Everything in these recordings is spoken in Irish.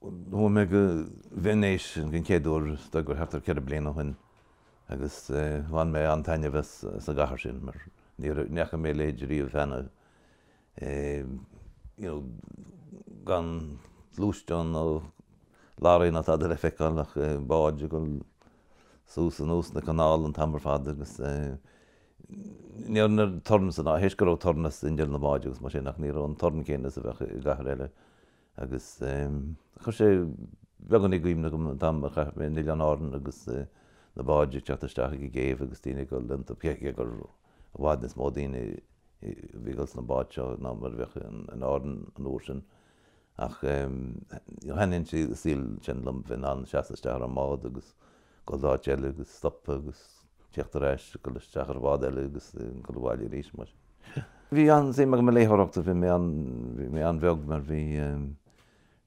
Chuaigh mé go Veinéis den chéad uair is dóigh gur thart ar 4 bliana ó shin agus bhain mé an-taitneamh as an gcathair sin mar ní fhaca mé a leithéid riamh cheana, you know gan gluaisteán nó lorraí ná tada le feiceáil ach báid ag dul suas anuas na canála an t-am ar fad agus ní raibh an torann san áit, théis go raibh torann as inneall na mbád agus mar sin ach ní raibh an torann céanna is a bheadh i gcathair eile. Agus chuir sé beagán i gcuimhne dom an t-am a chaith mé in Oileáin Árann agus na báid ag teacht isteach ag an gcéibh agus daoine ag dul iontu, cé gur i bhfad níos mó daoine a bhí ag dul sna báid seo ná mar a bheadh in Árainn an uair sin. Ach thaitnigh an saol sin liom, bheith in ann seasamh isteach ar an mbád agus dul d'áit eile agus stopadh agus teacht ar ais, dul isteach ar bhád eile agus dul abhaile arís mar sin. Bhí an-suim agam i léitheoireacht, bhí mé an, bhí mé an-bheag mar bhí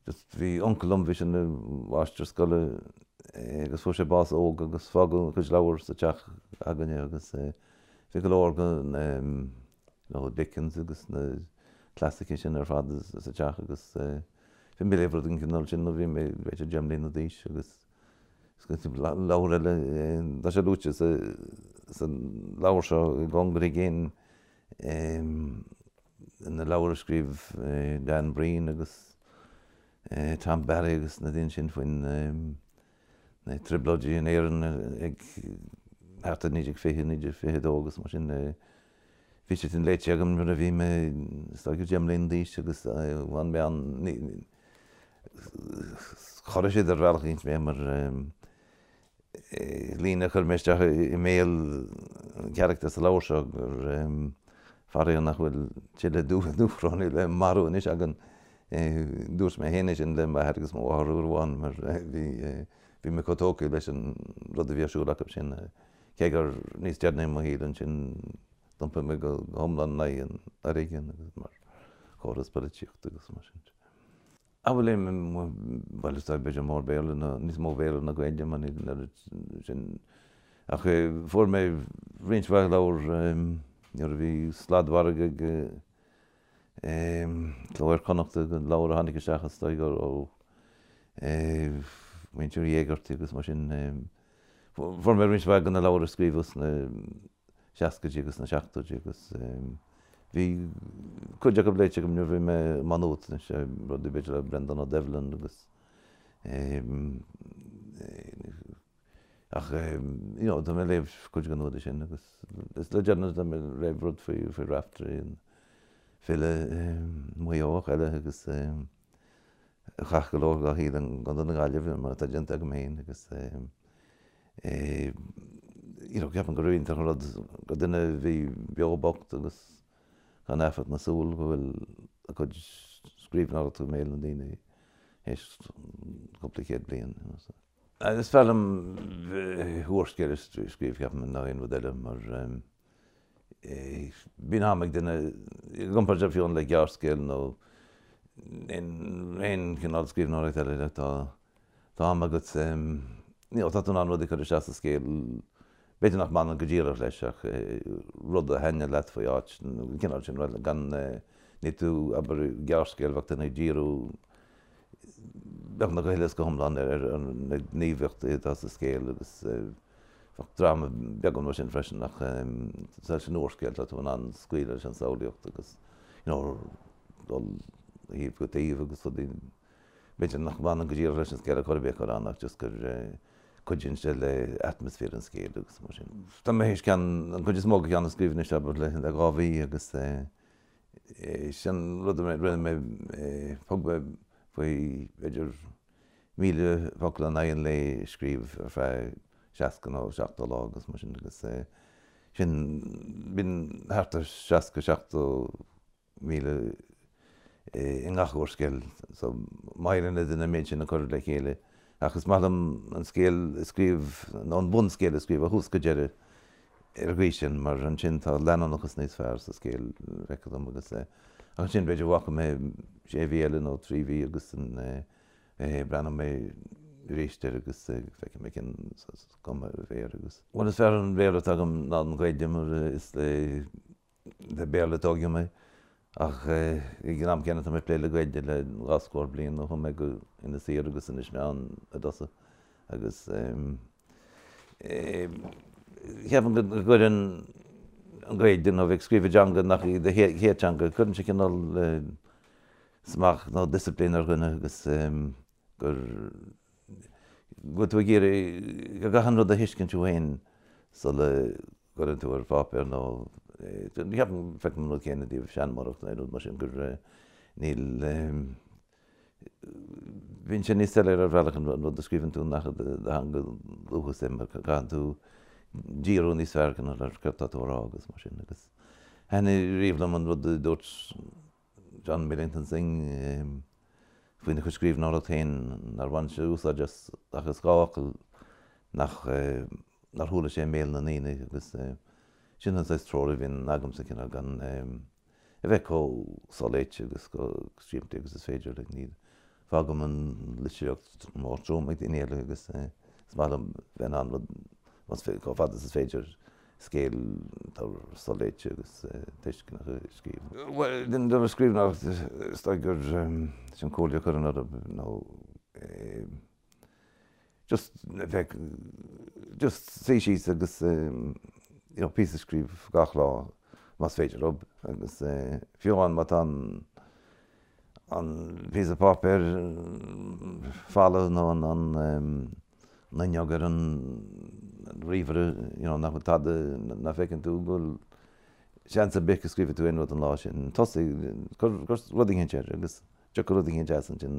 just bhí uncail liom, bhí sé ina mháistir scoile agus fuair sé bás óg agus fágadh a chuid leabhar sa teach againne agus bhí go leor den you know Dickens agus na clasaicigh sin ar fad sa teach agus bhí mé ag léamh rud den chineál sin nuair a bhí mé b'fhéidir 10 mbliana d'aois agus Leabhar eile, tá sé luaite sa leabhar seo i gcóngar i gcéin, na leabhair a scríobh Dan Breen agus Tom Barry agus na daoine sin faoin na trioblóidí in Éirinn ag thart ar 1920, 1922 agus mar sin. Bhí siad sin léite agam nuair a bhí mé is dóigh 10 mbliana d'aois agus bhain mé an, chorraigh siad ar bhealach éicint mé mar líne a chuir mé isteach i mbéal an charachtar sa leabhar seo gur faraor nach bhfuil tuilleadh Dúchrónaigh le marú anois againn. Dúirt mé féin é sin le m'athair agus mo mháthair uair amháin mar bhí bhí mé chomh tógtha leis an rud a bhí ar siúl acu sin. Cé gur níos deireanaí i mo shaol ansin d'iompaigh mé go hiomlán in aghaidh an fhoréigin agus mar chóras polaitíochta agus mar sin de. Bhuel, bhuel is dóigh b'fhéidir mór Béarla ná, níos mó Béarla ná Gaeilge mar níl an oiread sin ach fuair mé roinnt mhaith leabhar nuair a bhí sladmhargadh ag Cló Iar-Chonnachta, leabhair a tháinig isteach is dóigh ó mhuintir Uí Éigeartaigh agus mar sin. Fuair mé roinnt mhaith de na leabhair a scríobhadh sna seascaidí agus sna seachtóidí agus bhí cuid acu léite agam nuair a bhí mé i Má Nuat anois, rudaí b'fhéidir le Breandán Ó Doibhlin agus ach you know tá mé ag léamh cuid den údar sin agus is le deireanas tá mé ag léamh rud faoi faoi Raiftearaí an file Maigh Eoach eile agus a chaith go leor dá shaol i gContae na Gaillimhe mar atá déanta agam féin agus you know ceapaim gur iontach an rud gur duine a bhí beo bocht agus gan éifeacht na súl go bhfuil a cuid scríbhneoireachta i mbéal na ndaoine théis cúpla céad bliain. You know, so. Is fearr liom úrscéal a scríobh ceapaim ná aon rud eile mar Bíonn am ag duine, i gcomparáid fiú le gearrscéal nó aon chineál scríbhneoireacht eile, tá tá am agat, you know, tá tú in ann rudaí a chur isteach sa scéal, b'fhéidir nach mbaineann go díreach leis ach rud a thaitneodh leat faoi áit nó an cineál sin rud, gan, níl tú, abair, gearrscéal bheadh duine ag díriú beagnach go huile is go hiomlán ar na gníomhaíochtaí atá sa scéal agus bheadh dráma beagán mar sin freisin ach leis an úrscéal tá tú in ann scaoileadh leis an samhlaíocht agus you know dul ó thaobh go taobh agus rudaí b'fhéidir nach mbaineann go díreach leis an scéal ar chor ar bith a chur ann ach just gur cuidíonn sé le atmaisféar an scéil agus mar sin. Tá mé théis ceann, an chuid is mó de cheann a scríobh anois abair le 2 mhí agus sin rud a rinne mé, thug mé faoi b'fhéidir 1,000 focal in aghaidh an lae a scríobh ar feadh 60 nó 70 lá agus mar sin agus sin, bíonn thart ar 60, 70,000 i ngach úrscéal so má éiríonn le duine an méid sin a chur le chéile ach is maith liom an scéal a scríobh nó an bunscéal a scríobh ó thús go deireadh ar an gcaoi sin mar ansin tá leanúnachas níos fearr sa scéal, feictear dom agus ach ansin b'fhéidir bhfágfaidh mé sé mhí eile nó trí mhí agus breathnóidh mé arís air agus feicfidh mé cén cuma a bheidh air agus. Bhuel is fearr an Béarla atá agam ná an Ghaeilge mar is le Béarla a tógadh mé. Ach ag an am céanna tá mé ag plé le Gaeilge le dhá scór bliain ó chuaigh mé go Inis Oírr agus Inis Meáin i dtosach agus ceapaim go gcuireann an Ghaeilge nó bheith ag scríobh i dteanga nach í do chéad teanga, cuireann sé cineál smacht nó disciplín ar dhuine agus gur go bhfuil tú ag iarraidh go gcaithfidh an rud a thuiscint thú féin sula gcuireann tú ar pháipéar nó ceapaim, feicim an rud céanna i dtaobh seanmóireacht nó aon rud mar sin gur níl, bíonn sé níos soiléire ar bhealach an rud a scríobhann tú nach i do theanga dhúchais é mar caitheann tú díriú níos fearr cineál ar céard tá tú a rá agus mar sin agus thaitnigh riamh liom an rud a dúirt John Millington Synge faoina chuid scríbhneoireacht féin, nár bhain sé úsáid as ach as 2 fhocal nach nár chuala sé i mbéal na ndaoine agus sin an saghas treoir a bhíonn agamsa, cineál gan a bheith chomh soléite agus chomh simplí agus is féidir. Like, ní fágaim an litríocht mór trom ag daoine eile agus is maith liom bheith in ann rud, chomh fada is is féidir, scéal atá soléite agus tuisceanach a scríobh. Bhuel, den dara scríbhneoireacht, is dóigh gur sin comhairle a chuirfinn orthu nó just bheith, just suí síos agus you know píosa a scríobh gach lá más féidir leo agus fiú amháin má tá an an píosa páipéir folamh nó an an fhuinneog ar an ríomhaire, you know, nach bhfuil tada, nach bhfeiceann tú go bhfuil seans ar bith go scríobhfaidh tú aon rud an lá sin. Tosaigh, cuir rud eicínt air agus tiocfaidh rud eicínt as ansin,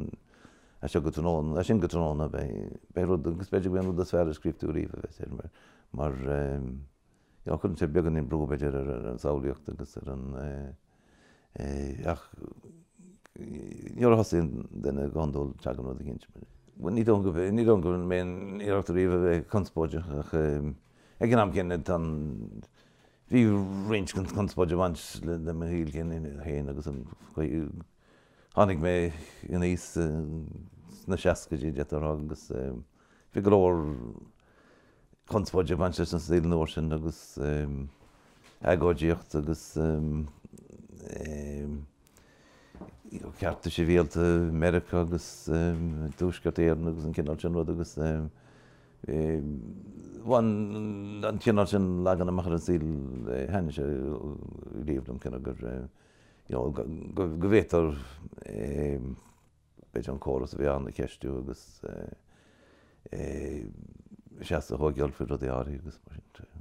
as seo go tráthnóna, as sin go tráthnóna beidh, beidh rud, agus b'fhéidir go mbeidh an rud is fearr a scríobh tú riamh a bheas air mar, mar you know, cuireann sé beagáinín brú b'fhéidir ar an samhlaíocht agus ar an, Ach nuair a thosaíonn duine go hiondúil tagann rud eicínt. Ní dóigh go ní dóigh go rinne mé aon iarracht ariamh a bheith conspóideach ach ag an am céanna tá an bhí roinnt den chonspóid ag baint le mo shaol féin agus an chaoi tháinig mé aníos sna seascaidí d'fhéadfá a rá agus bhí go leor conspóid ag baint leis an saol an uair sin agus agóidíocht agus cearta sibhialta i Meiriceá agus i dTuaisceart Éireann agus an cineál sin rud agus bhain an cineál sin leagan amach ar an saol thaitnigh sé riamh liom cineál gur you know go bhféadtar b'fhéidir an córas a bhí ann a cheistiú agus seasamh a thógáil faoi rudaí áirithe agus mar sin de.